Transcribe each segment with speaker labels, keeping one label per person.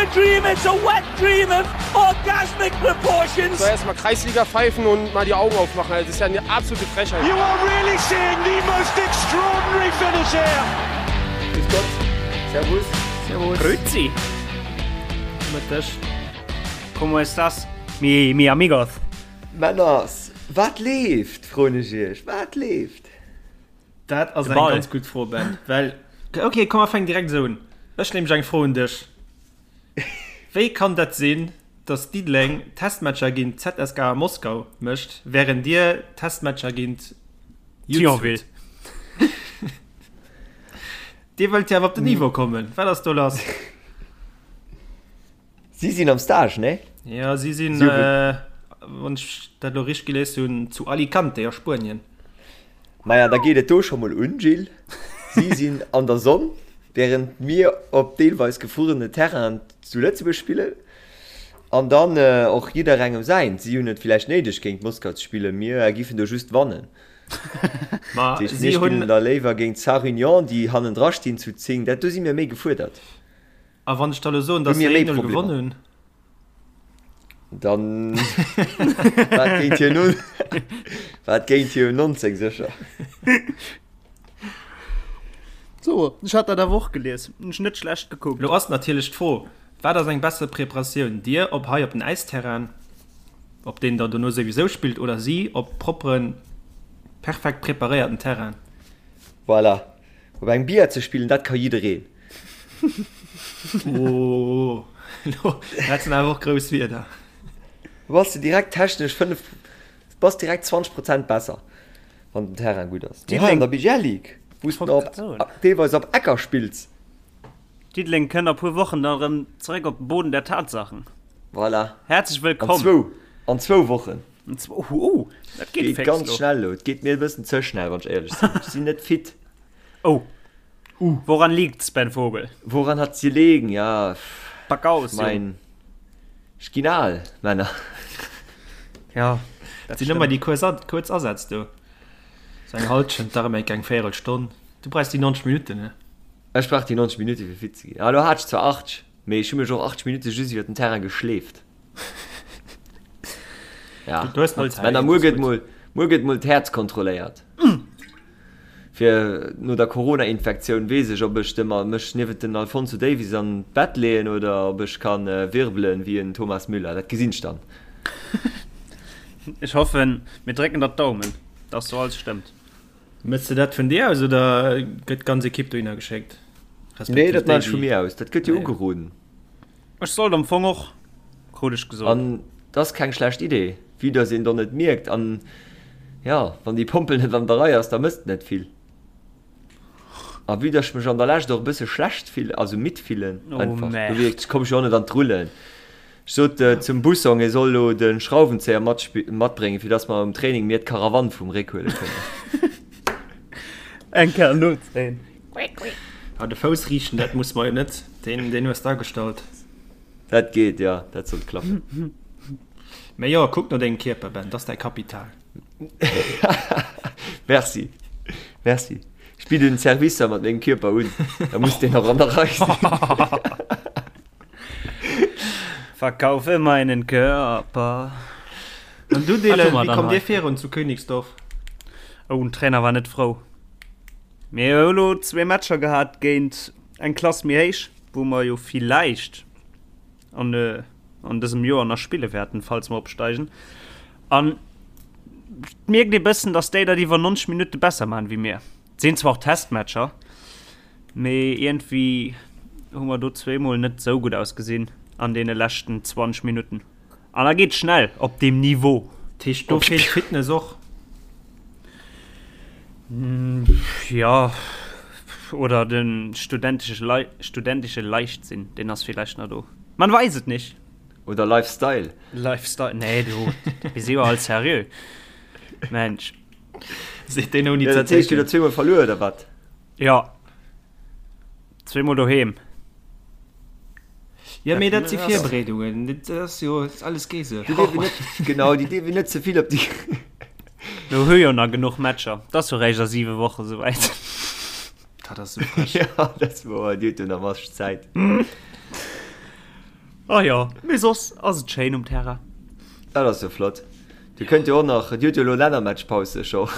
Speaker 1: a dream, it's a wet dream of orgasmic proportions.
Speaker 2: So erstmal Kreisliga pfeifen und mal die Augen aufmachen. Das ist ja eine absolute Frechheit.
Speaker 1: You are really seeing the most extraordinary finish here.
Speaker 3: Grüß Gott. Servus.
Speaker 4: Servus.
Speaker 5: Grüezi.
Speaker 4: Mëtteg.
Speaker 5: Como estas, mi, mi amigos?
Speaker 3: Männers, wat leeft, froen ech iech, wat leeft?
Speaker 4: Dat ass eng ganz gutt Fro, Ben. Well, okay, komm, mer fänken direkt esou un. Ech nämlech eng Fro un dech. Wéi kann dat sinn, datt Diddeleng Testmatcher géint ZSKA Moskau mécht, wärend dir Testmatcher géint
Speaker 5: Thionville?
Speaker 4: Dir wëllt jo awer op den Niveau kommen. Wat ass do lass?
Speaker 3: Si sinn am Stage, nee?
Speaker 4: Ja, si sinn, wann ech dat elo richteg gelies hunn, zu Alicante a Spuenien.
Speaker 3: Maja, da geet et do scho mol un, Gilles. Si sinn an der Sonn, wärend mir op deelweis gefruerene Terrainen zu Lëtzebuerg spillen. An dann och jidderengem säint. Si hunn et villäicht néideg, géint Moskau ze spillen, mir giffen do just wannen.
Speaker 4: Ma
Speaker 3: Dat heescht,
Speaker 4: si
Speaker 3: mir
Speaker 4: hunn.
Speaker 3: spillen da léiwer géint Sarre-Union, déi hannendra stinn zu 10. Dat, do si mir méi gefuerdert.
Speaker 4: A wann ech da lo soen,
Speaker 3: Hu
Speaker 4: dass
Speaker 3: mir
Speaker 4: se
Speaker 3: méi
Speaker 4: 1-0
Speaker 3: Problemer.
Speaker 4: gewonnen hunn?
Speaker 3: Dann war et géint hir nun war et géint hir 19 sécher.
Speaker 5: So, ech hat dat awer och gelies. Hunn ech net schlecht gekuckt.
Speaker 4: Lo ass natierlech d'Fro, Wat ass eng besser Preparatioun, dir op hei op den Äisterrain, op deen der dono souwisou spillt, oder si op propperen, perfekt preparéierten Terrain?
Speaker 3: Voilà. Op engem Billard ze spillen, dat ka jiddereen.
Speaker 4: Oh, dat sinn awer och grouss Wierder.
Speaker 3: Du bass de direkt technesch 5, bass direkt 20 Prozent besser, wann den Terrain gutt ass. Mee hei an der BGL Ligue, wou s de op, deelweis op Ecker spills.
Speaker 5: Diddeleng kënnt a puer Wochen dann erëm zeréck op den Boden der Tatsachen.
Speaker 3: Voilà.
Speaker 5: Häerzlech wëllkomm.
Speaker 3: An zwou, an zwou Wochen.
Speaker 5: An zwou, oh, dat geet
Speaker 3: Geet
Speaker 5: fix
Speaker 3: ganz
Speaker 5: lo.
Speaker 3: schnell lo. Et geet mir e bëssen ze schnell, wann ech éierlech sinn. Ech sinn net fit.
Speaker 5: Oh. Woran liegt's, Ben Vogel?
Speaker 3: Woran hat's gelegen? Ja,
Speaker 5: Pack aus,
Speaker 3: ech
Speaker 5: Jong.
Speaker 3: mein, ech ginn al, Männer.
Speaker 5: Ja,
Speaker 4: Dat sinn ëmmer déi kuerz, kuerz Asätz do. Sou eng Halschent, dach ëmmer eng Véierelstonn. Du brauchs déi 90 Minutten, ne?
Speaker 3: Ech brauch déi 90 Minutte fir fit ze ginn. Ah, lo hat ech zwar 80, mee ech hu mech och 80 Minutte just iwwer den Terrain geschleeft. Ja.
Speaker 4: Du hues nach Zäit.
Speaker 3: Männer, muer gëtt mol, muer gëtt mol d'Häerz kontrolléiert. Fir no der Corona-Infektioun weess ech, ob ech de mech niewent den Alphonso Davies an d'Bett leeën oder ob ech ka wirbelen wéi en Thomas Müller. Dat gesinn ech dann.
Speaker 5: Ech hoffen, mir drécken der d'Daumen, dass do alles stëmmt.
Speaker 4: Mëss de dat vun dir aus oder gëtt d'ganz Ekipp dohinner geschéckt?
Speaker 3: Nee,
Speaker 4: Respektiv
Speaker 3: dat
Speaker 4: déi,
Speaker 3: maan ech vu
Speaker 4: déi.
Speaker 3: mir aus. Dat gëtt jo
Speaker 4: Ah, ja.
Speaker 3: ugeroden.
Speaker 5: Ech sollt am Fong och, krut ech gesot.
Speaker 3: An 't ass keng schlecht Idee, vue dass een dann et mierkt. An jo, wann déi Pompel net an der Rei ass, da mësst net vill. A vue dass ech mech an der Lescht och e bësse schlecht fillen, also midd fillen
Speaker 5: Oh,
Speaker 3: einfach,
Speaker 5: Merde.
Speaker 3: dofir komm ech jo och net an d'Rullen. Ech sot zum Bussong, e soll elo de Schrauwenzéier matbréngen, fir dass mer um Training mir d'Karawann vum Réck huele kënnen.
Speaker 5: Eng Kéier nozéien.
Speaker 4: Ah, de Fouss riichten, dat muss mer jo net. Deen, deen hues d'agestallt.
Speaker 3: Dat geet, jo, dat sollt klappen.
Speaker 4: Mä jo, kuck no dengem Kierper, Ben, dat ass däi Kapital.
Speaker 3: Merci, merci. Ech bidden Servicer mat mengem Kierper un, da muss deen och an der Rei sinn.
Speaker 5: Verkaufe meinen Körper.
Speaker 4: An du Dylan, wéi kommt dir virun zu Königsdorf?
Speaker 5: Oh, den Trainer war net frou. Mir hu lo zwee Matcher gehat géint eng Klass méi héich, wou mer jo villäicht an, äh, an dësem Joer nach spille wäerten, falls mer opsteigen. An et mierkt ee bëssen, dass déi dat iwwer 90 Minutte besser maachen wéi mir. Et sinn zwar och Testmatcher, Mee iergendwéi hu mer do zweemol net sou gutt ausgesinn an deene leschten 20 Minutten. An da geet schnell op deem Niveau.
Speaker 4: Dat heescht, do feelt d'Fitness och?
Speaker 5: Jo, oder de studentesche Leichtsinn, deen ass villäicht nach do. Man weiß et nicht.
Speaker 3: Oder Lifestyle.
Speaker 5: Lifestyle, nee, du, mir si jo all seriö. Mensch.
Speaker 4: Seet deen ouni
Speaker 3: ze zécken. Dat heescht, dir hutt zweemol verluer, oder wat?
Speaker 5: Jo. Zweemol doheem.
Speaker 4: Ja, mee dat si Virbereedungen. Dat ass jo alles Geese.
Speaker 3: Déi dierf een net, genau, déi dierf een net ze vill op déi.
Speaker 5: Mir hu jo nach genuch Matcher. Dat ass jo réischt a siwe Woche souwäit.
Speaker 4: Dat ass sou frech.
Speaker 3: Ja, dat ass wouer. Dir hutt jo nach masseg Zäit.
Speaker 5: Oh jo, mee soss ass et schéin um Terrain.
Speaker 3: Dat ass jo flott. Dir kënnt jo och nach, Dir hutt jo elo Lännermatchpaus scho.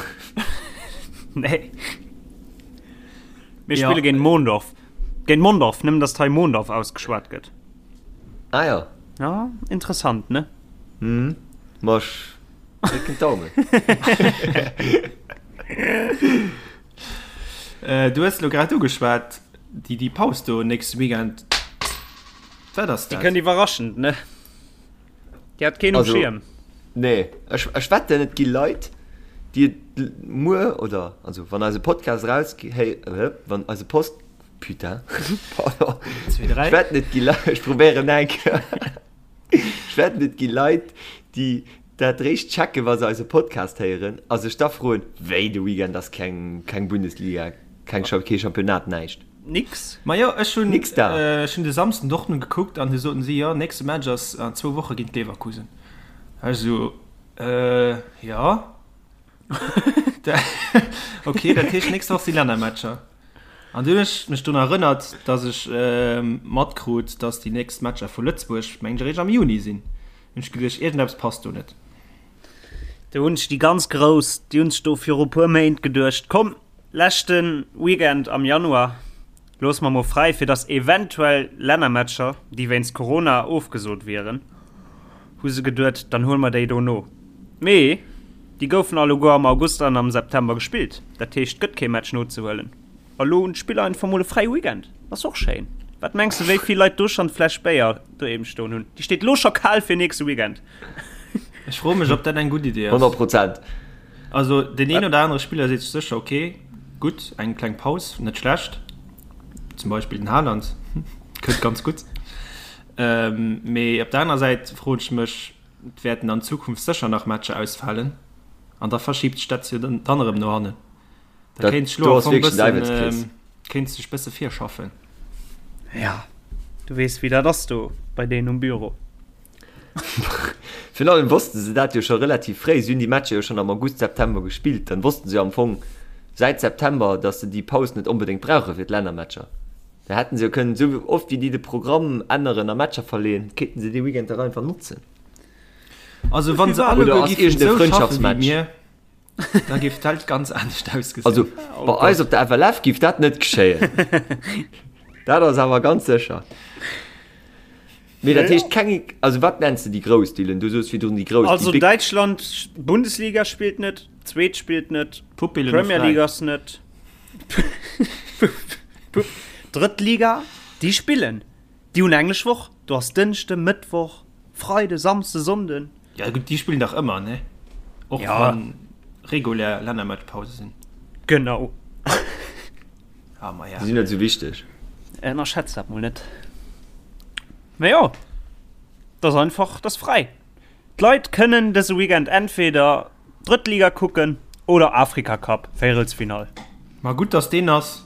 Speaker 5: Nee. Mir spille géint Mondorf. Géint Mondorf, nëmmen datt hei Mondorf ausgeschwat gëtt.
Speaker 3: Ah jo.
Speaker 5: Ja, interessant, ne?
Speaker 3: Mhm. Ma ech drécken d'Daumen.
Speaker 4: Du hues elo grad ugeschwat, déi, déi Paus do nächste Weekend. Wat ass
Speaker 5: dat? Déi kënnt iwwerraschend, ne? Déi hat keen um Schierm.
Speaker 3: Nee, ech, ech wetten, et gi Leit, déi et muer oder, also wann eise Podcast eraus, hey, wann eise Post, putain, pardon, ech wetten, et gi Leit, ech probéieren nach eng Kéier, ech wetten, et gi Leit, déi dat réischt checken, wa se eise Podcast héieren a sech da froen, wéi, de Weekend ass keng, keng Bundesliga, keng, kee Championnat, näischt.
Speaker 5: Nix.
Speaker 4: Majo, ech hunn
Speaker 3: Nix da.
Speaker 4: ech hunn de Samsden Dortmund gekuckt an du soten si, jo, nächste Match ass an zwou Woche géint Leverkusen. Ech esou, äh, jo. Ok, dat heescht nächst Woch si Lännermatcher. An dunn hunn ech mech drun erënnert, datt ech matkrut, datt déi nächst Matcher vu Lëtzebuerg, mengen ech, eréischt am Juni sinn. Hunn ech geduecht, iergendeppes passt do net.
Speaker 5: Do hunn sech déi ganz Grouss, déi hunn sech do viru puer Méint geduecht, komm, Leschte Weekend am Januar loosse mer mol fräi, fir dass eventuell Lännermatcher, déi wéinst Corona ofgesot wieren, hu se geduet, dann huele mer déi do no. Mee déi goufen alleguer am August an am September gespillt, dat heescht, et gëtt kee Match nozehuelen. A lo hunn d'Spiller einfach mol e fräie Weekend. Ass och schéin. Wat mengs de, wéi vill Leit do schonn d'Fläsch Béier doheem stoen hunn? Déi steet lo scho kal fir nächste Weekend.
Speaker 4: Ech froe mech, ob dat eng gutt Idee ass.
Speaker 3: 100 Prozent.
Speaker 4: Also deen een oder anere Spiller seet sech sécher, ok, gutt, eng kleng Paus, net schlecht. Zum Beispill den Haaland kënnt ganz gutt. Mee op der anerer Säit froen ech mech, et wäerten an Zukunft sécher nach Matcher ausfalen an da verschiibt sech dat jo dann erëm no hannen. Da kéint sech elo am Fong bëssen, kéint sech bësse virschaffen.
Speaker 5: Ja, du weess wéi dat ass do bei deenen um Büro.
Speaker 3: Virun allem wosste se dat jo scho relativ fréi. Si hunn déi Matcher jo schonn am August, September gespillt. Dann wossten se jo am Fong säit September, datt se déi Paus net onbedéngt brauche fir d'Lännermatcher. Da hätten se jo kënnen, esou oft wéi déi de Programm änneren a Matcher verleeën, kéinten se dee Weekend dach einfach notzen.
Speaker 4: Also wann se
Speaker 3: alleguer
Speaker 4: Oder ass
Speaker 3: géifen
Speaker 4: iergend e
Speaker 3: esou
Speaker 4: schaffen wéi
Speaker 3: Frëndschaftsmatch?
Speaker 4: mir, da géif d'Welt ganz anescht ausgesinn.
Speaker 3: Also bei eis op der FLF géif dat net geschéien. Dat ass awer ganz sécher. Mee dat heescht keng, also wat nenns de déi grouss, Dylan? Du soos virdrun déi grouss, déi
Speaker 5: Also
Speaker 3: big.
Speaker 5: Däitschland, Bundesliga spillt net, zweet spillt net,
Speaker 4: Pupillen hu
Speaker 5: Premier
Speaker 4: fräi.
Speaker 5: League ass net, Drëtt Liga, déi spillen, déi hunn englesch Woch, do ass Dënschde, Mëttwoch, Freide, Samsde, Sonnden.
Speaker 4: Ja gutt, déi spillen dach ëmmer, ne? Och
Speaker 5: Ja.
Speaker 4: wann regulär Lännermatchpause sinn.
Speaker 5: Genau.
Speaker 4: Ah, ma ja.
Speaker 3: Déi sinn net esou wichteg.
Speaker 5: Ënnerschätzt dat mol net. Mee jo, dat ass einfach, dat ass fräi. D'Leit kënnen dëse Weekend entweder Drëtt Liga kucken oder Afrika Cup, Véierelsfinall.
Speaker 4: Ma gutt, dass deen ass.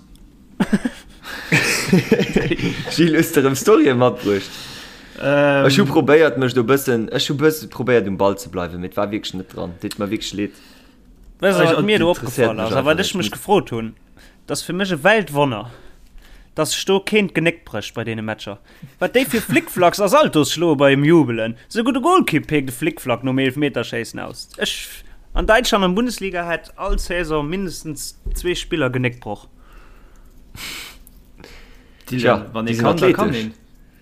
Speaker 3: Gilles, hues de erëm Storyen matbruecht? Ech hu probéiert mech do bëssen, ech hu bësse probéiert um Ball ze bleiwen, mee et war wierklech net dran. Deet mer wierklech leed.
Speaker 5: Weess de, wat mir do
Speaker 3: Interesséiert
Speaker 5: opgefall
Speaker 3: mech
Speaker 5: ass a
Speaker 3: einfach
Speaker 5: wat
Speaker 3: net.
Speaker 5: ech mech gefrot hunn? Et ass fir mech e Weltwonner, dass sech do keen d'Genéck brécht bei deene Matcher. Wat déi fir Flickflacks a Saltos schloe beim Jubelen. Souguer de Golkipp peekt e Flickflack nom Eelefmeterschéissen aus. Ech, an Däitschland an Bundesliga hätt all Saison mindestens zwee Spiller Genéckbroch.
Speaker 4: Dylan, wann ee kann, da kann een.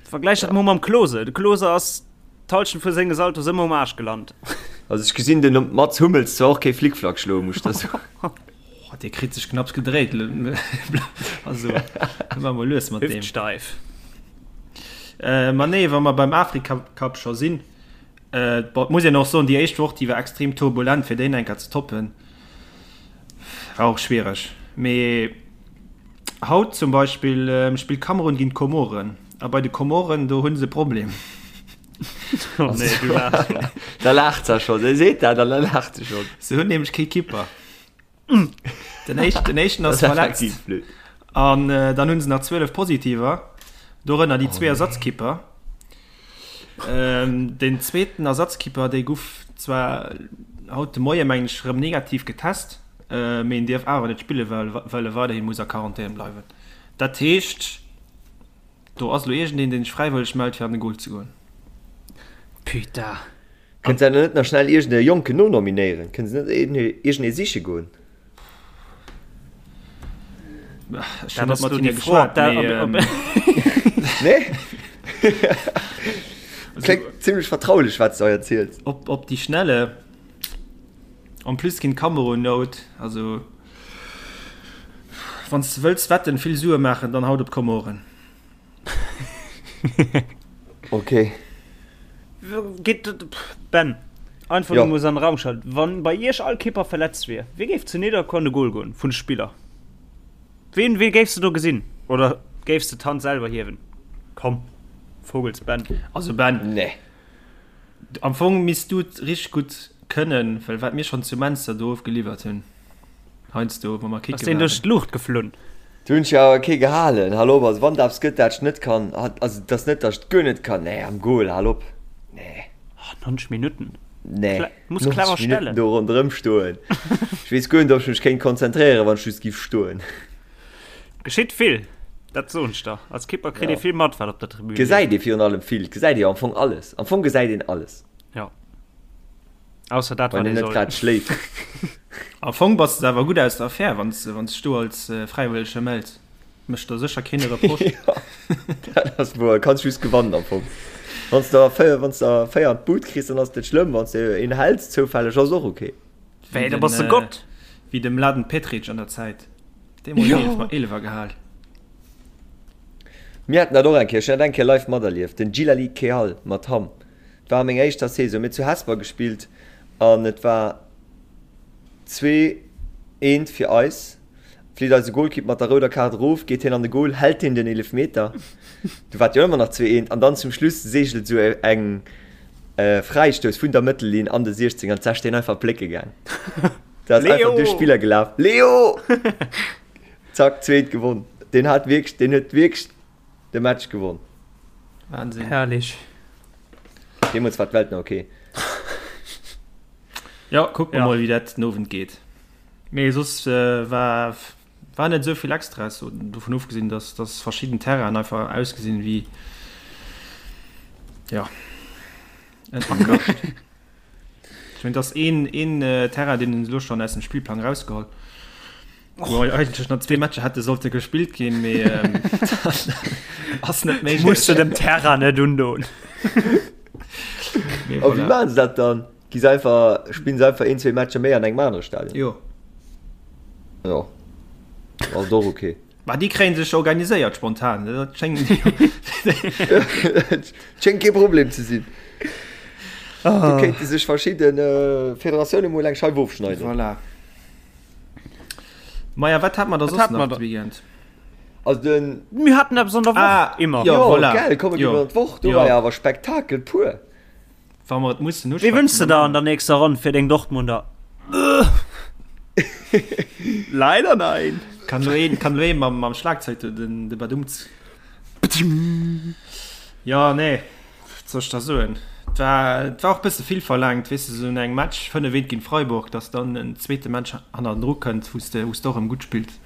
Speaker 5: Vergläich dat mol mam Klose. De Klose ass d'Halschent vu senge Saltos ëmmer um Aarsch gelant.
Speaker 3: Also ech gesinn den Mats Hummels zwar och kee Flickflack schloen, muss ech der soen.
Speaker 4: Oh, dee kritt sech knapps gedréit. Also, war mol lues mat deem.
Speaker 5: Hüftsteif.
Speaker 4: Äh, ma nee, wa mer beim Afrika Cup scho sinn, äh, bon, muss een och soen, déi éischt Woch, déi war extrem turbulent, fir déi enker ze toppen. War och schwiereg. Mee haut zum Beispill ähm, spillt Kamerun géint d'Komoren. A bei de Komoren, do hunn se e Problem.
Speaker 5: Oh nee, du laachs schon.
Speaker 3: Da laacht se schon. Se seet dat an da laacht se schon.
Speaker 4: Se hunn nämlech kee Kipper. Den éischten, den éischten ass verletzt. An äh, dann hunn se nach 12 Positiver, dorënner déi zwee Ersatzkipper. Ähm, den zweeten Ersatzkipper, dee guff zwar haut de Moie meng ech rëm negativ getest, äh, mee en dierf awer net spille well, well e weiderhi muss a Quarantän bleiwen. Dat heescht. Do ass elo iergendeen, deen sech fräiwëlleg mellt, fir an de Goal ze goen.
Speaker 5: Putain.
Speaker 3: Kënnt se net nach schnell iergend e Jonken nonominéieren? Kënne se net iergend ee siche goen?
Speaker 4: Ech hunn net mat hinne geschwat, mee.
Speaker 3: Nee? Kléngt zimlech vertraulech, wat s de hei erziels.
Speaker 4: Op, op déi Schnelle. En plus ginn d'Kameroen nout. Also, wann s de wëlls wetten, vill Sue maachen, dann haut op d'Komoren.
Speaker 3: Ok.
Speaker 5: Geet Ben, einfach
Speaker 3: Jo.
Speaker 5: nur an den Raum gestallt. Wann bei iech all Kipper verletzt wier, wie géif zu Nidderkuer an de Goal goen vun de Spiller? Ween, wee géifs de do gesinn? Oder géifs de d'Hand selwer hiewen? Komm, Vogels Ben.
Speaker 4: Also Ben,
Speaker 3: Nee.
Speaker 4: am Fong misst du et richteg gutt kënnen, well wat mir schonn zu Menster do ofgeliwwert hunn. Heiansdo, wa mer
Speaker 5: Ass
Speaker 4: kicke
Speaker 5: deen duerch
Speaker 4: waren.
Speaker 5: d'Luucht geflunn?
Speaker 3: Do hunn ech jo awer kee gehalen. Hal op, also wann et eppes gëtt, dat ech net kann, also et ass net, datt ech et guer net kann, nee, am Goal, hal op, nee.
Speaker 5: Oh, 90 Minutten.
Speaker 3: Nee,
Speaker 5: Kle muss
Speaker 3: 90
Speaker 5: clever
Speaker 3: Minutten
Speaker 5: stellen.
Speaker 3: do ronderëm stoen. Ech weess guer net, ob ech mech kéint konzentréieren, wann ech just giff stoen.
Speaker 5: Geschitt vill, dat soen ech der. Als Kipper kritt
Speaker 3: Ja.
Speaker 5: ee vill mat, wat op der Tribün leeft.
Speaker 3: Gesäit ee virun allem vill, gesäit ee jo am Fong alles. Am Fong gesäit een alles.
Speaker 5: Ja. Ausser dat,
Speaker 3: Wann
Speaker 5: wat
Speaker 3: een
Speaker 5: ee
Speaker 3: net
Speaker 5: soll.
Speaker 3: grad schléift.
Speaker 4: Am Fong bass de awer gutt aus der Affär, wann s de dech do als Fräiwëllege mells. Mécht der sécher keen e Reproche.
Speaker 3: Jo, dat ass wouer. Kanns just gewannen am Fong. Wann s de der 4, wann s de der 4 an d'Bud kriss, dann ass et net schlëmm. Wann s de een häls zoufälleg, ass och ok.
Speaker 5: Wéi, da bass de Gott!
Speaker 4: Wéi de Mladen Petric an der Zäit. Dee mol
Speaker 3: Jo.
Speaker 4: 11 Eelefer gehal.
Speaker 3: Mir haten dat och eng Kéier, ech hunn dat eng Kéier live materlieft, den Djilali Kehal mat Hamm. Et war a menger éischter Saison, mir hu zu Hesper gespillt an et war 2, eent fir eis. Flitt eise Golkipp mat der rouder Kaart erof, geet hien an de Gol, hält hien den Eelefmeter, du war et jo ëmmer nach 2, eent an dann zum Schluss seegelt esou eng Fräistouss vun der Mëttellinn an de 16 an d'Sech deen einfach plécke gaang. Dat ass einfach duerch d'Spiller gelaf. Leo! Zack, zweet gewonn. Deen hat wierklech, deen huet wierklech de Match gewonn.
Speaker 4: Wahnsinn.
Speaker 5: Herrlich.
Speaker 3: Deemools war d'Welt nach ok.
Speaker 4: Ja, kucke mer
Speaker 5: Ja.
Speaker 4: mol, wéi dat den Owend geet. Mee soss äh, war, war net esou vill Extras, so, dovun ofgesinn, dass, dass verschidden Terrainen einfach ausgesinn wéi ja, en Acker. Ech mengen, et ass een, een Terrain, deen hunn se elo schonn aus dem Spillplang erausgeholl. Wou eigentlech nach zwee Matcher hätte sollte gespillt ginn, mee ass net méiglech.
Speaker 5: Muss de dem Terrain net undoen.
Speaker 4: Mee
Speaker 3: A wéi
Speaker 4: voilà.
Speaker 3: maachen se dat dann? Gi se einfach, spillen se einfach een, zwee Matcher méi an engem anere Stadion?
Speaker 4: Jo.
Speaker 3: Jo. Ass och ok.
Speaker 4: Ma déi kréien sech organiséiert spontan, dat schéngt
Speaker 3: Schéngt kee Problem ze sinn. Do kéinte sech verschidde Federatioune mol eng Scheif ofschneiden.
Speaker 4: Voilà. Maja, wat hat mer da soss nach de Weekend?
Speaker 3: Also den.
Speaker 5: Mir haten eppes an der Woch, immer.
Speaker 3: Jo, voilà. Gell, komm, mir ginn an d'Woch. Do war jo awer Spektakel pur.
Speaker 4: Wa mer et mussen
Speaker 5: Wee wënschs de der an der nächster Ronn fir deng Dortmunder? Leider nein.
Speaker 4: Kann lo een, kann lo een mam, mam Schlagzeug do den, de Badumts. Ja, nee, wat soll ech da soen? Et war, et war och bësse vill verlaangt, weess de, sou no engem Match, 5 eent géint Freiburg, dass dann en zweete Match hannendru kënnt, wou s de, wou s de och erëm gutt spills.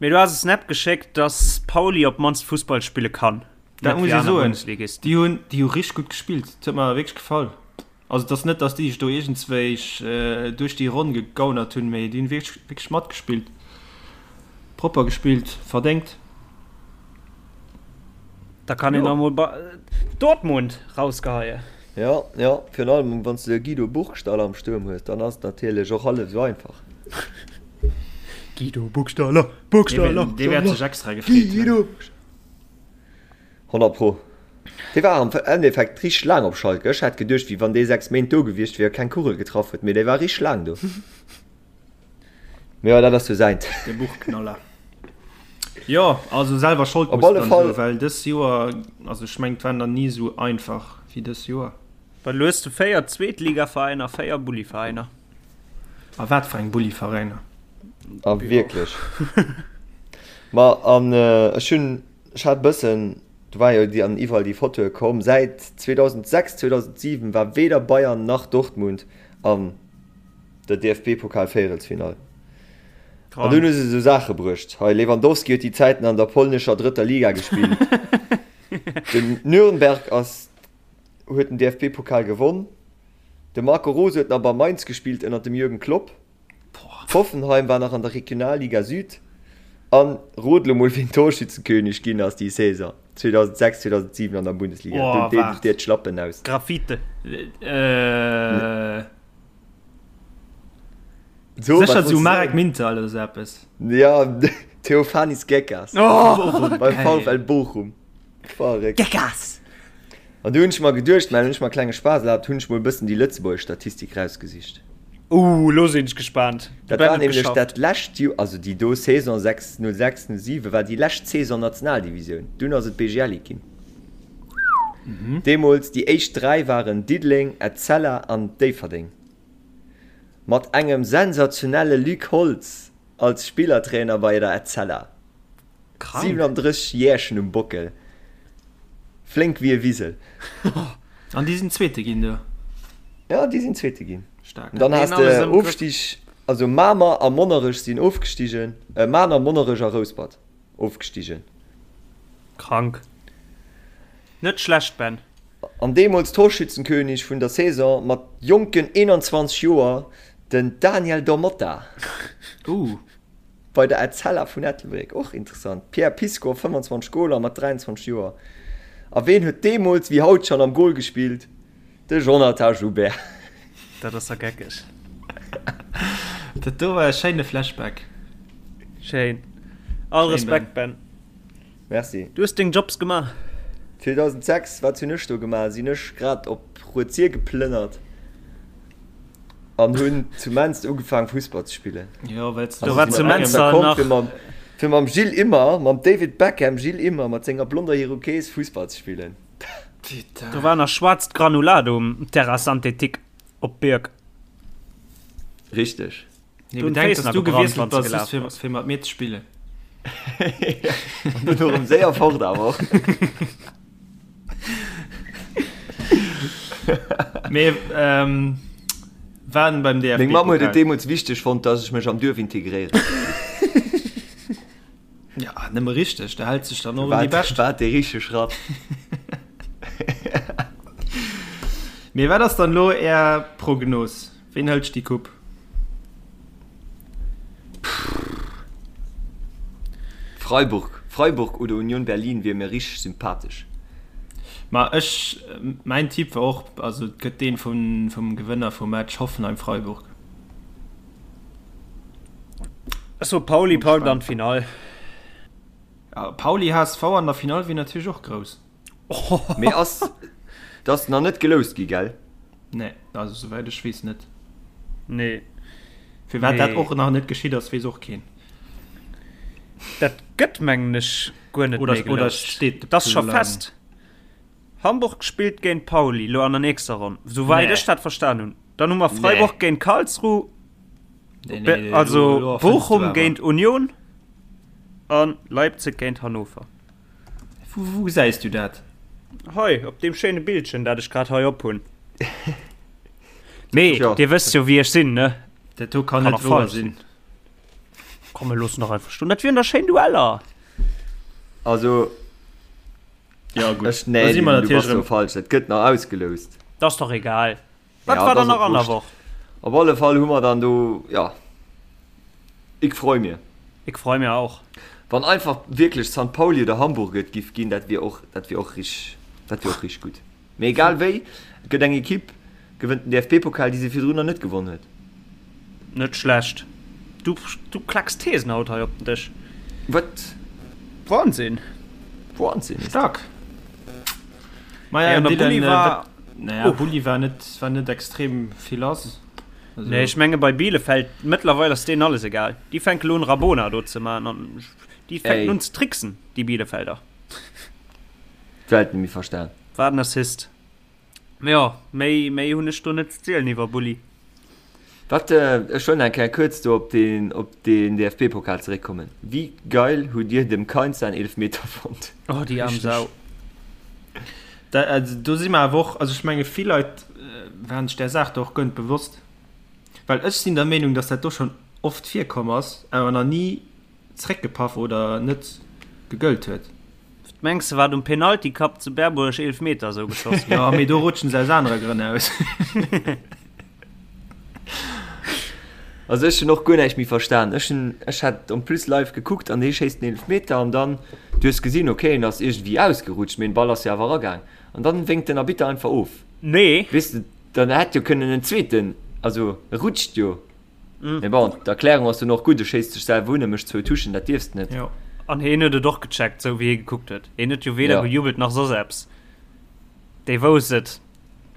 Speaker 5: Mee du has e Snap geschéckt, dass Pauli op d'mannst Fussball spille kann.
Speaker 4: Dat muss ee soen, déi hunn déi hu richteg gutt gespillt. Dat huet mer wierklech gefall. Also et ass net, datt déi sech do iergendswéi duerch déi Ronn gegaunert hunn, mee déi hunn wierklech wierklech matgespillt, propper gespillt, verdéngt.
Speaker 5: Da kann een nach emol Dortmund rausgeheien.
Speaker 3: Jo, jo, virun allem wann s de Guido Burgstaller am Stuerm hues, dann ass et natierlech och hallef esou einfach.
Speaker 5: Guido Burgstaller, Burgstaller,
Speaker 4: Dee wäert sech extra gefreet hunn.
Speaker 3: Guido! 100 pro. Dee war am Endeffekt richteg laang op Schalke. Ech hat geduecht, wéi wann dee 6 Méint do gewiescht wier a keng Kugel getraff huet, mee dee war richteg laang do. Mee jo, dat ass jo säint.
Speaker 4: De Buchknaller. Jo, also selwer Schold
Speaker 3: Op
Speaker 4: muss
Speaker 3: alle
Speaker 4: dann
Speaker 3: Fall.
Speaker 4: soen, well dës Joer, also ech mengen, et war nach ni esou einfach wéi dës Joer.
Speaker 5: Well elo hues du 4 Zweetligaveräiner, 4 Bulliveräiner.
Speaker 4: A wat fir eng Bulliveräiner.
Speaker 3: A wierklech. Ma an ech hunn, ech hat e bëssen, do war jo déi an iwwerall déi Fotoe komm, säit 2006, 2007 war weder Bayern nach Dortmund an der DFB-Pokal-Véierelsfinall. An dunn hu se esou Saache bruecht, hei Lewandowski huet déi Zäiten an der polnescher drëtter Liga gespillt, den Nürnberg ass huet den DFB-Pokal gewonn, de Marco Rose huet nach bei Mainz gespillt ënner dem Jürgen Klopp, Hoffenheim war nach an der Regionalliga Süd an rot lo mol wien Torschützenkönig ginn ass déi Saison 2006, 2007 an der Bundesliga.
Speaker 4: Oh,
Speaker 3: Dunn deet
Speaker 4: waart.
Speaker 3: et dir d'Schlappen aus.
Speaker 5: Graffite.
Speaker 4: Äh.
Speaker 3: So,
Speaker 4: Sécher
Speaker 3: wat
Speaker 4: sou
Speaker 3: wollts du
Speaker 4: Marek
Speaker 3: soen?
Speaker 4: Mintal oder sou eppes.
Speaker 3: Ja, Theofanis Gekas.
Speaker 5: Oh,
Speaker 3: Beim
Speaker 4: geil.
Speaker 3: VfL Bochum. Verréckt.
Speaker 5: Gekas!
Speaker 3: An du hunn ech mer geduecht, mä hunn ech mer e klenge Spaass erlaabt, hunn ech mol e bëssen déi lëtzebuergesch Statistik rausgesicht.
Speaker 5: Uh, lo sinn ech gespaant. De
Speaker 3: Dat
Speaker 5: Ben
Speaker 3: war
Speaker 5: huet
Speaker 3: nämlech
Speaker 5: geschafft.
Speaker 3: dat lescht Joer, also déi do Saison 6, 06, 07 war déi lescht Saison Nationaldivisioun. Dunn ass et BGL Ligue ginn. Deemools déi éischt 3 waren Diddeleng, Etzella an Déifferdeng. Mat engem sensationelle Luc Holtz als Spillertrainer bei der Etzella.
Speaker 5: Krank.
Speaker 3: 37 Jährchen um Bockel. Flénk wéi e Wisel.
Speaker 4: An déi sinn Zweete ginn do?
Speaker 3: Ja, déi sinn Zweete ginn.
Speaker 4: Staark.
Speaker 3: An dann has de Ofstig, also Mamer a Monnerech sinn ofgestigen, Mamer, Monnerech a Rouspert ofgestigen.
Speaker 5: Krank. Net schlecht, Ben.
Speaker 3: An deemools Torschützenkönig vun der Saison mat jonken 21 Joer, den Daniel Da Motta.
Speaker 4: Uh.
Speaker 3: Bei der Etzella vun Ettelbréck, och interessant, Pierre Piscow, 25 Goler mat 23 Joer. A ween huet deemools wéi haut schonn am Gol gespillt? De Jonathan Joubert.
Speaker 5: Dat ass der geckeg.
Speaker 4: Dat do war e schéine Flashback.
Speaker 5: Schéin. All Respekt, Ben.
Speaker 3: Merci.
Speaker 5: Du hues deng Jobs gemaach.
Speaker 3: 2006, wat hunn ech do gemaach? Sinn ech grad op Rued-Sir geplënnert an hunn zu Menster ugefaangen Fussball ze spillen.
Speaker 4: Jo, well s
Speaker 5: Do war zu Menster
Speaker 3: komm
Speaker 5: nach.
Speaker 3: fir mam, fir mam Gilles Immer, mam David Beckham, Gilles Immer mat senger blonder Iroquese Fussball ze spillen.
Speaker 5: Do war nach schwaarzt Granulat um Terrain synthétique op Bierg.
Speaker 3: Richteg.
Speaker 4: Nee,
Speaker 5: Du
Speaker 4: bedenk,
Speaker 5: Féiss
Speaker 4: dass
Speaker 5: nach
Speaker 4: du
Speaker 5: gebrannt,
Speaker 4: gewiesselt
Speaker 5: wann s
Speaker 4: bass,
Speaker 5: gelaf
Speaker 4: just fir,
Speaker 5: bass.
Speaker 4: fir mat mir ze spillen.
Speaker 3: An dunn erëm séier fort awer.
Speaker 4: Mee ähm, waren beim DFB.
Speaker 3: Meng Mamm huet et deemools wichteg fonnt, dass ech mech am Duerf integréieren.
Speaker 4: Ja, nëmme richteg, da hält sech dann och un déi
Speaker 3: War,
Speaker 4: Bescht.
Speaker 3: war dee richtege Schratt.
Speaker 4: Mee wat ass dann elo Är Prognos? Ween hëlt déi Coupe?
Speaker 3: Freiburg, Freiburg oder Union Berlin wier mir richteg sympathesch.
Speaker 4: Ma ech, mäin Tipp war och, also et gëtt deen vum, vum Gewënner vum Match Hoffenheim-Freiburg.
Speaker 5: Ech soe Pauli packt an d'Finall.
Speaker 4: Ja, Pauli-HSV an der Finall wier natierlech och grouss.
Speaker 3: Mee ass, dat ass nach net geloust gi, gell?
Speaker 4: Nee, also souwäit ech weess net.
Speaker 5: Nee.
Speaker 4: Firwat dat
Speaker 5: Nee.
Speaker 4: och nach net geschitt ass, weess och keen.
Speaker 5: Dat gëtt mengen ech guer net
Speaker 4: Oder,
Speaker 5: méi
Speaker 4: oder
Speaker 5: geloust.
Speaker 4: steet de
Speaker 5: Dat ass scho
Speaker 4: Plang?
Speaker 5: fest. Hamburg spillt géint Pauli lo an der nächster Ronn, souwäit
Speaker 4: Nee.
Speaker 5: ech dat verstan hunn. Dann hu mer Freiburg géint Karlsruhe,
Speaker 4: Nee,
Speaker 5: Be-
Speaker 4: nee, lo- lo
Speaker 5: also
Speaker 4: erfënns du
Speaker 5: Bochum
Speaker 4: awer.
Speaker 5: géint Union an Leipzig géint Hannover.
Speaker 4: Wou, wou gesäis du dat?
Speaker 5: Hei, op deem schéine Bildchen, dat ech grad hei op hunn. Mee,
Speaker 3: Tja.
Speaker 5: dir wësst jo, wéi ech sinn, ne?
Speaker 4: Dat do kann
Speaker 5: Kann
Speaker 4: net
Speaker 5: och
Speaker 4: wouer
Speaker 5: falsch
Speaker 4: sinn.
Speaker 5: Komm, mir loossen dach einfach stoen. Dat wieren da schéin Dueller.
Speaker 3: Also,
Speaker 4: Ja, gutt.
Speaker 3: ech, nee,
Speaker 4: Da si mer
Speaker 3: du bass
Speaker 4: natierlech
Speaker 3: do
Speaker 4: erëm.
Speaker 3: falsch. Dat gëtt nach ausgeloust.
Speaker 5: Dat ass dach egal. Wat
Speaker 3: Ja,
Speaker 5: war
Speaker 3: dat
Speaker 5: dann
Speaker 3: ass
Speaker 5: nach
Speaker 3: och
Speaker 5: an der
Speaker 3: wurscht.
Speaker 5: Woch?
Speaker 3: Op alle Fall hu mer dann do, ja, ik freu mir.
Speaker 5: Ik freu mir auch.
Speaker 3: Wann einfach wierklech San Pauli oder Hamburg et giff ginn, dat wier och, dat wier och rich, dat wier och rich gutt. Mee egal wéi, et gëtt eng Equipe, gewënnt den DFB-Pokal, déi se virdrun nach net gewonn huet.
Speaker 5: Net schlecht. Du, du klacks Thesen haut hei op den Dësch.
Speaker 3: Wat?
Speaker 5: Wahnsinn.
Speaker 3: Wahnsinn ist dat.
Speaker 4: Stark. Maja,
Speaker 5: Ja, an der
Speaker 4: Dylan,
Speaker 5: Bulli
Speaker 4: äh,
Speaker 5: war.
Speaker 4: wat, naja,
Speaker 5: Uff.
Speaker 4: Bulli war net, war net extrem vill lass. Also,
Speaker 5: Nee, ech menge bei Bielefeld, mëttlerweil ass deenen alles egal. Déi fänke lo un Rabona do ze man an déi fänken
Speaker 3: Ey.
Speaker 5: un ze tricksen, déi Bielefelder.
Speaker 3: D'Welt net méi verstan.
Speaker 5: Wat en Assist. Mee jo, méi, méi hunn ech do net ze zielen iwwer Bulli.
Speaker 3: Wat, ech wëll nach eng Kéier kuerz do op den, op den DFB-Pokal zeréckkommen. Wéi geil hutt Dir dem Kainz säin Eelefmeter fonnt?
Speaker 5: Oh, déi aarm
Speaker 4: Richtig.
Speaker 5: Sau.
Speaker 4: Da, also, do si mer awer och, also ech menge vill Leit waren sech där Saach do och guer net bewosst. Well ech sinn der Meenung, datt dat do schonn. oft virkomm ass, awer nach ni zréckgepaff oder net gegëllt huet.
Speaker 5: Wat mengs de wat um Penalty Cup zu Berbuerg Eelfmeter esou geschoss
Speaker 4: ginn? Jo, mee do rutschen se aus anere Grënn aus.
Speaker 3: Also ech hunn och guer näischt méi verstan. Ech hunn, ech hat en plus live gekuckt an dee schéisst den Eelefmeter an dann, du hues gesinn, okay, en ass iergendwéi ausgerutscht, mee den Ball ass jo awer eragaang an dann wénkt den Arbitter einfach of.
Speaker 5: Nee.
Speaker 3: Weess de, dann hätt jo kënnen en zweeten, also e rutscht jo. Mee bon, d'Erklärung ass dunn och gutt, e schéisst sech selwer un, e mécht zwou Touchen, dat dierfs de net.
Speaker 5: Jo. An hien huet et och gecheckt, sou wéi hie gekuckt huet. Hien huet jo weder gejubelt nach soss eppes. Dee wousst et.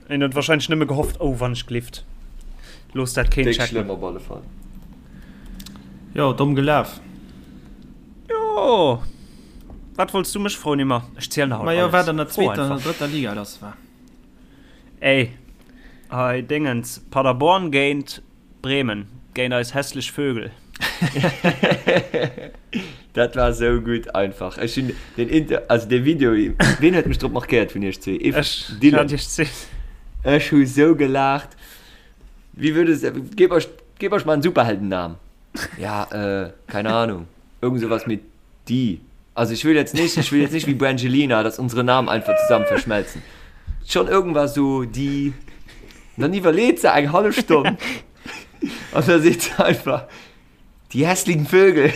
Speaker 5: Hien huet warscheinlech nëmme gehofft, Oh, wann ech glift, looss dat keen
Speaker 3: Déck checken. schlëmm op alle Fall.
Speaker 4: Jo, domm gelaf.
Speaker 5: Jo. Wat wollts du mech froen, Immer? Ech zielen der haut
Speaker 4: Majo,
Speaker 5: alles.
Speaker 4: wat an der
Speaker 5: Fro
Speaker 4: zweeter an der
Speaker 5: einfach.
Speaker 4: drëtter Liga lass war.
Speaker 5: Ey, hei Dingens, Paderborn géint Bremen, géint eis hässlech Vögel.
Speaker 3: Dat war sou gutt einfach. Ech hunn den Inter, also dee Video, ween huet mech drop markéiert vun iech zwee? Ech,
Speaker 5: Ech
Speaker 3: Dylan.
Speaker 5: hat iech zwee.
Speaker 3: Ech hu sou gelaacht. Wéi würde se, geb euch, geb euch mal einen Superheldennamen. Ja, äh, keine Ahnung. Irgend sowas mit Die. Also ich will jetzt nicht, ich will jetzt nicht wie Brangelina, dass unsere Namen einfach zusammen verschmelzen. Schon irgendwas so die. Und dann iwwerleet se eng hallef Stonn. An da seet se einfach, die hässlichen Vögel.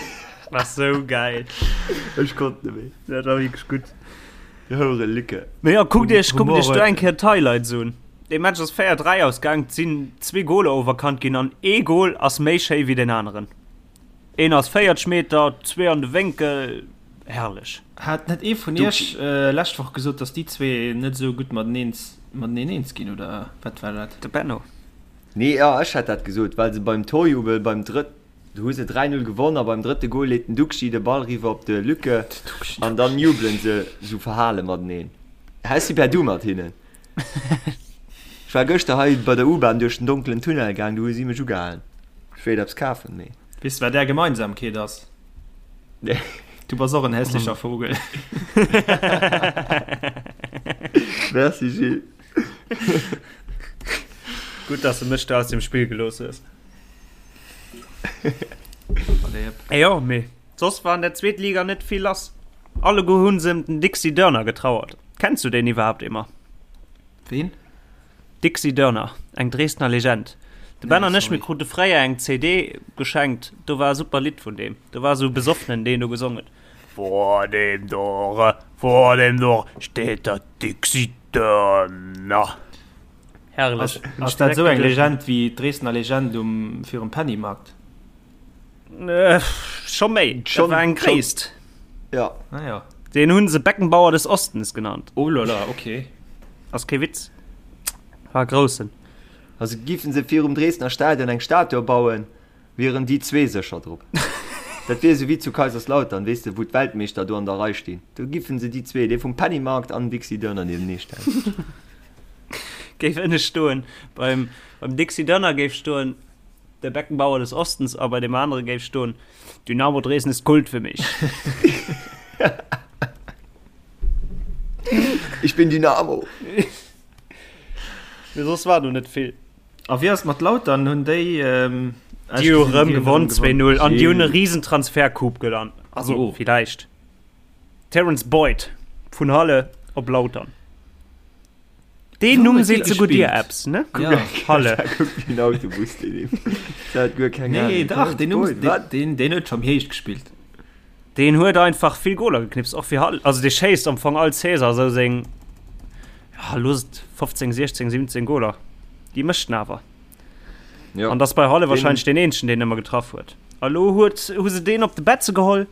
Speaker 5: War sou geil.
Speaker 3: Ech konnt net méi.
Speaker 5: Dat war wierklech gutt.
Speaker 3: Die Houre Lücke.
Speaker 5: Mee ja, kuckt iech, kuckt
Speaker 4: Humor
Speaker 5: iech do
Speaker 4: huet
Speaker 5: eng Kéier d'Highlights un. Dee Match ass 4, 3 ausgaang, et sinn zwee Goler overkannt ginn an ee Gol ass méi schéi wéi deen aneren. Een ass 40 Meter, zwee an de Wénkel, herrlech.
Speaker 4: Hat net ee vun iech lescht Woch gesot, dass déi zwee net esou gutt mateneen mateneen eens ginn, oder wat war dat?
Speaker 5: De Benno.
Speaker 3: Nee, jo, ech hat dat gesot, well se beim Torjubel beim drëtt, do hu se 3, 0 gewonn a beim drëtte Gol leet den Duxi de Ball riwwer op de Lücke an dann jubelen se sou verhale mateneen. Ech si per Du mat hinnen. Ech war gëschter hei bei der U-Bahn duerch den donkelen Tunnel gaang, do hu si mech ugehalen. Ech wéilt eppes kafen, mee.
Speaker 4: Weess de wat är Gemeinsamkeet ass?
Speaker 3: Nee.
Speaker 4: Du bass och en hässlecher Vogel.
Speaker 3: Merci Gilles.
Speaker 5: Gutt, dass de mech do aus dem Spill gelooss hues.
Speaker 4: Allez hop.
Speaker 5: Jo, mee soss war an der Zweetliga net vill lass. Alleguer hunn se em den Dixi Dörner getrauert. Kenns du deen iwwerhaapt, Emma?
Speaker 4: Ween?
Speaker 5: Dixi Dörner, eng Dresdner Legend. De Ben
Speaker 4: Nee,
Speaker 5: an ech, mir
Speaker 4: sorry.
Speaker 5: krute fréier eng CD geschenkt, do war e super Lidd vun deem. Do war esou e Besoffenen, deen do gesong huet, Vor dem Tore, vor dem Tore steht der Dixi Dörner. Herrlech.
Speaker 4: Ass,
Speaker 5: Hunn ech
Speaker 4: ass dat
Speaker 5: direkt
Speaker 4: esou eng
Speaker 5: geduecht.
Speaker 4: Legend wéi d'Dresdner Legend um virum Pennymarkt?
Speaker 5: Scho méi, dat
Speaker 3: Schon,
Speaker 5: war eng
Speaker 3: schon.
Speaker 5: Gréisst.
Speaker 3: Ja.
Speaker 4: Ah ja.
Speaker 5: Deen hunn se Beckenbauer des Ostens genannt.
Speaker 4: Oh lala, okay.
Speaker 5: Ass kee Witz. War e Groussen.
Speaker 3: Also giffen se virum Dresdner Stadion eng Statue bauen, wieren déi zwee sécher drop. Dat wier esou wéi zu Kaiserslautern, weess de, wou d'Weltmeeschter do an der Rei stinn. Do giffen se déi zwee, dee vum Pennymarkt an den Dixi Dörner niewenee stellen.
Speaker 5: Géif ënne stoen, beim, beim Dixi Dörner géif stoen, Der Beckenbauer des Ostens a bei deem anere géif stoen, Dynamo Dresden ist Kult für mich.
Speaker 3: Ich bin Dynamo.
Speaker 5: Mee soss war do net vill.
Speaker 4: A wéi ass et mat Lautern? Hunn déi
Speaker 5: Déi hu rëm gewonn 2-0 an déi hunn e Risentransfercoup gelant. Also
Speaker 4: Oh.
Speaker 5: villäicht. Terrence Boyd vun Halle op Lautern. Deen Numm seet souguer dir eppes, ne?
Speaker 4: Ja.
Speaker 5: Halle.
Speaker 3: Den Autobus, deen dat guer keng
Speaker 4: Nee, dach, deen Numm,
Speaker 3: Wat?
Speaker 4: deen, deen huet scho méi héich gespillt.
Speaker 5: Deen huet einfach vill Goler geknipst, och fir Halle. Also dee schéisst am Fong all Saison esou seng, ja, looss et 15, 16, 17 Goler. Déi mécht en awer.
Speaker 3: Ja.
Speaker 5: An dass bei Halle
Speaker 3: Deen-
Speaker 5: wahrscheinlech deen eenzegen, deen ëmmer getraff huet. A lo huet, hu se deen op de Betze geholl.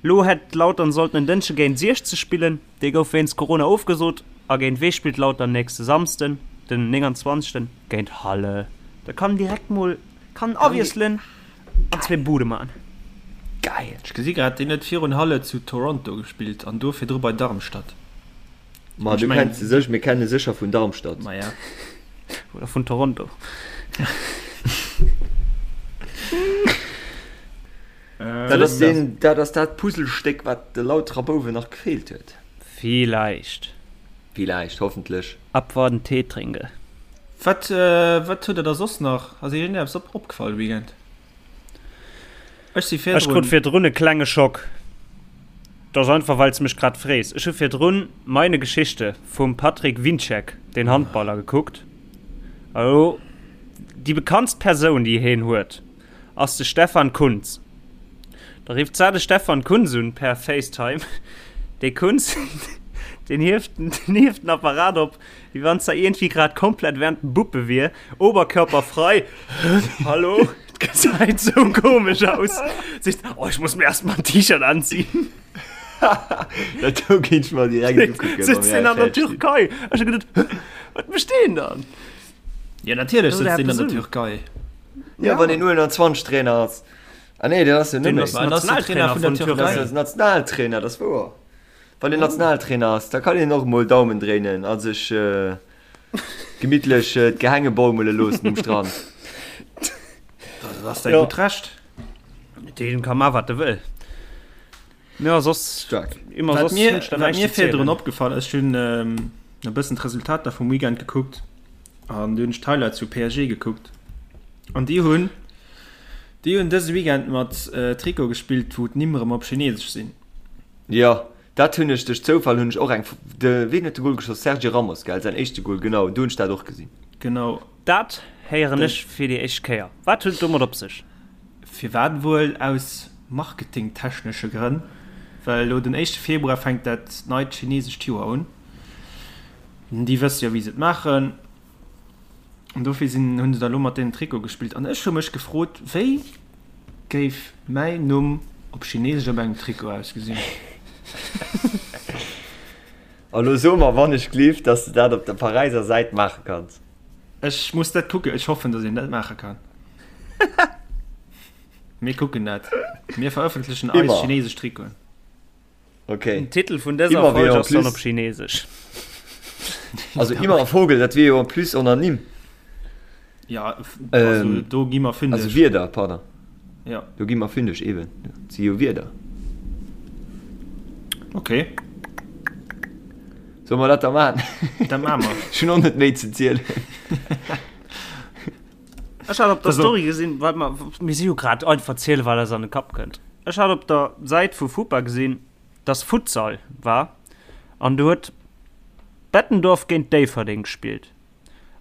Speaker 5: Lo hätt Lautern sollten en Dënschde géint 60 spillen, dee gouf wéinst Corona ofgesot. A géint wee spillt Lautern nächste Samsden, den 29.? Géint Halle. Da kann direkt mol kann awiesselen an zwee Bude man.
Speaker 3: Geil!
Speaker 4: Ech gesi grad, deen huet virun Halle zu Toronto gespillt an do virdru bei Darmstadt.
Speaker 3: Ma
Speaker 4: Ech
Speaker 3: du
Speaker 4: mengen-
Speaker 3: kenns se sech, mir kenne sécher vun Darmstadt.
Speaker 4: Ma ja.
Speaker 5: Oder vun Toronto.
Speaker 3: Dat ass deen, dat ass dat Puzzlestéck, wat de Lauterer Bouwen nach gefeelt huet.
Speaker 5: Villäicht.
Speaker 3: Villäicht, hoffentlech.
Speaker 5: Abwarten, Tee trinke.
Speaker 4: Wat, wat huet der da soss nach? Ass iech iergendeppes op, opgefall de Weekend? Ech si
Speaker 5: Ech krut
Speaker 4: virdrun.
Speaker 5: virdrun e klenge Schock. Dat ass einfach, well s de mech grad frees. Ech hu virdrun Meine Geschichte vum Patrick Wiencek, den Handballer, gekuckt. A lo, déi bekanntst Persoun, déi heen huet, ass de Stefan Kuntz. Da rifft d'Sar de Stefan Kuntz un per Facetime. Dee Kuntz, deen hieft, deen hieft den Apparat op, wéi wann s'da iergendwéi grad komplett während dem Buppe wier, oberkörperfrei. Hallo? Et gesäit sou komesch aus. Seet, oh, ech muss mir erst mal ein T-Shirt anziehen.
Speaker 3: Dat do géint ech mer direkt ukucken.
Speaker 5: Sitzt deen an der Türkei? Ech hu geduet, wat mécht deen dann?
Speaker 4: Ja, natierlech
Speaker 5: Oder
Speaker 4: sëtzt deen an
Speaker 5: eppes
Speaker 4: der
Speaker 5: un.
Speaker 4: Türkei.
Speaker 3: Ja, wann een U21 Trainer ass. Ah nee, dat ass jo net
Speaker 5: Deen
Speaker 3: méi.
Speaker 5: ass
Speaker 4: Mä ass de Trainer
Speaker 5: Nationaltrainer
Speaker 4: vun der
Speaker 5: vun
Speaker 4: Türkei.
Speaker 3: Dat
Speaker 5: Türkei.
Speaker 3: ass Nationaltrainer, dat ass wouer. Wann een Nationaltrainer ass, da kann een och mol Daumen dréinen a sech gemittlech d'Gehänge baumele loossen um Strand.
Speaker 4: Dat ass säi
Speaker 5: Ja.
Speaker 4: gutt Recht.
Speaker 5: Deen ka man wat e wëll. Ja, soss
Speaker 3: Stark.
Speaker 5: immer
Speaker 4: Wat
Speaker 5: soss
Speaker 4: mir,
Speaker 5: hunn ech da
Speaker 4: wat
Speaker 5: näischt
Speaker 4: mir
Speaker 5: ze zielen.
Speaker 4: virdrun opgefall ass, ech hunn e bëssen d'Resultater vum Weekend gekuckt an du hunn ech d'Highlights vu PSG gekuckt an déi hunn déi hunn dëse Weekend mat Trikot gespillt, wou d'Nimm erëm op Chinesesch sinn.
Speaker 3: Jo, dat hunn ech duerch Zoufall hunn ech och eng, de ween huet de Goal geschoss? Sergio Ramos gell, säin éischte Goal, genau, do hunn ech dat och gesinn.
Speaker 4: Genau.
Speaker 5: Dat héieren ech fir déi éischt Kéier. Wat huet et domat op sech?
Speaker 4: Firwat wuel? Aus marketingtechnesche Grënn, well elo den éischte Februar fänkt dat neit chinesescht Joer un. Déi wësse jo wéi se et maachen an dofir sinn hunn se da elo mat deenen Trikote gespillt. An ech hu mech gefrot, wéi géif mäi Numm op chinesesch op engem Trikot ausgesinn?
Speaker 3: A lo so mer wann ech gleef, dass de dat op der Paräiser Säit maache kanns.
Speaker 4: Ech muss dat kucken. Ech hoffen, dass een dat maache kann. Mir kucken dat. Mir verëffentlechen eis
Speaker 3: Immer.
Speaker 4: chinesesch Trikoten.
Speaker 3: Okay.
Speaker 5: Den Titel vun dëser
Speaker 3: Immer wéi
Speaker 5: Folg
Speaker 3: en
Speaker 5: ass dann
Speaker 3: plus.
Speaker 5: op Chinesesch.
Speaker 3: Also immer Vogel, dat wier jo en plus en Ernimmt.
Speaker 4: Ja, also
Speaker 3: Ähm,
Speaker 4: do gi mer fündeg.
Speaker 3: Also Wierder, pardon.
Speaker 4: Ja.
Speaker 3: Do gi mer fündeg, eben. Dat si jo Wierder.
Speaker 4: Okay.
Speaker 3: Solle mer dat da maachen?
Speaker 4: Dat maache mer.
Speaker 3: Ech hunn och net méi ze zielen.
Speaker 5: Ech hat op der
Speaker 4: Also-
Speaker 5: Story gesinn, wat mer, mir si jo grad einfach ziele wat eis an de Kapp kënnt. Ech hat op der Säit vu FUPA gesinn, dass Futsal war an do huet Bettendorf géint Déifferdeng gespillt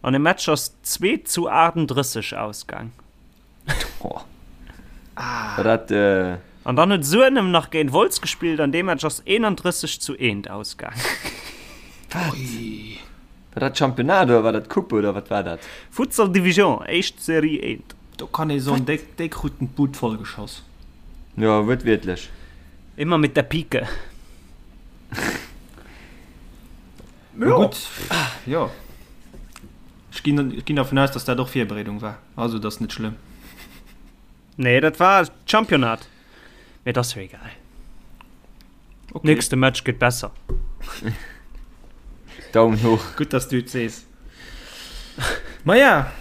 Speaker 5: an de Match ass 2 zu 38 ausgaang.
Speaker 3: Boah. War dat, äh,
Speaker 5: An dann huet Suenem nach géint Wolz gespillt an dee Match ass 31 zu 1 ausgaang.
Speaker 3: Wat? War dat Championnat oder war dat Coupe oder wat war dat?
Speaker 5: Futsal Division, éischt Serie 1.
Speaker 4: Do kann ee soen, déi, déi kruten d'Bud vollgeschoss.
Speaker 3: Jo, wuertwiertlech.
Speaker 5: Immer mit der Pike.
Speaker 4: Jo. Gutt, jo. Ech ginn, ech ginn dervun aus, dass dat och Virbereedung war. Also, dat ass net schlëmm.
Speaker 5: Nee, dat war Championnat. Mee et ass jo egal.
Speaker 4: Okay.
Speaker 5: Nächste Match gëtt besser.
Speaker 3: Daumen hoch.
Speaker 4: Gutt, dass du et sees. Maja,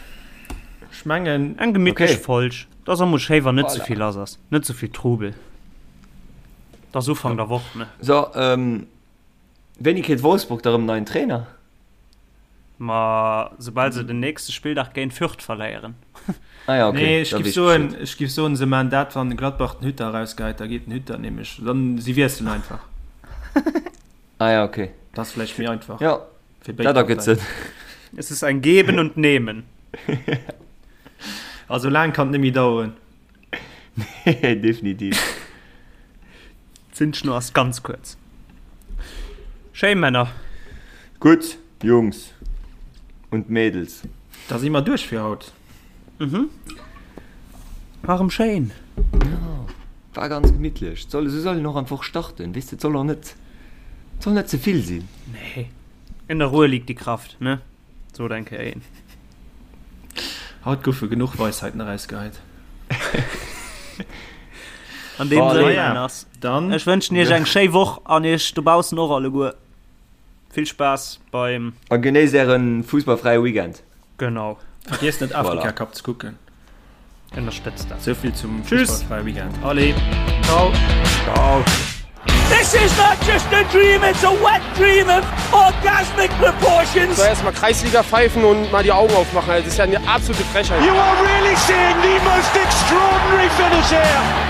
Speaker 4: ech mengen.
Speaker 5: Eng gemittlech
Speaker 3: Okay.
Speaker 5: Folg. Dat ass och mol schéi, wann net
Speaker 3: Voilà.
Speaker 5: ze vill lass ass. Net ze vill Trubel. Dat ass Ufank der Woch, ne?
Speaker 3: So, ähm, wéini kritt Wolfsburg da rëm en neien Trainer?
Speaker 5: Ma soubal se den nächste Spilldag géint Fürth verléieren.
Speaker 3: Ah ja, okay.
Speaker 4: Nee, ech
Speaker 3: da
Speaker 4: giff
Speaker 3: weess ich
Speaker 4: soen,
Speaker 3: Bescheed.
Speaker 4: ech giff soen, se maan dat, wann Gladbach den Hütter erausgeheit, da geet den Hütter nämlech, dann si wiesselen einfach.
Speaker 3: Ah ja, okay.
Speaker 4: Dat ass vläicht méi einfach
Speaker 3: Ja,
Speaker 4: fir béid
Speaker 3: dat ergëtt
Speaker 4: Parteien.
Speaker 3: Sënn.
Speaker 5: Es ist ein Geben und Nehmen.
Speaker 4: Also laang kann et net méi daueren.
Speaker 3: Nee, definitiv.
Speaker 5: D'Zündschnur ass ganz kuerz. Schéi Männer.
Speaker 3: Gutt, Jungs und Mädels.
Speaker 4: Da si mer duerch fir haut.
Speaker 5: Mhm. War rem schéin.
Speaker 3: Jo, war ganz gemittlech. Soll, esou soll een och an d'Woch starten, weess de. Et soll och net, et soll net ze vill sinn.
Speaker 5: Nee. In der Ruhe liegt die Kraft, ne? Sot eng Kéier een.
Speaker 4: Haut goufe genuch Weisheiten erausgeheit.
Speaker 5: An deem
Speaker 3: Allez.
Speaker 5: Sënn, Männers,
Speaker 4: Dann
Speaker 5: ech wënschen iech eng schéi Woch an iech dobaussen och alleguer vill Spaass beim.
Speaker 3: A genéisst ären fussballfräie Weekend.
Speaker 5: Genau.
Speaker 4: Vergiesst net
Speaker 3: Voilà.
Speaker 4: Afrika Cup ze kucken.
Speaker 5: Ënnerstëtzt dat.
Speaker 4: Souvill zum
Speaker 5: Tschüss.
Speaker 4: fussballfräie Weekend.
Speaker 5: Allez, ciao.
Speaker 3: Ciao.
Speaker 1: This is not just a dream, it's a wet dream of orgasmic proportions.
Speaker 2: So erstmal Kreisliga pfeifen und mal die Augen aufmachen. Das ist ja eine absolute Frechheit.
Speaker 1: You are really seeing the most extraordinary finish here.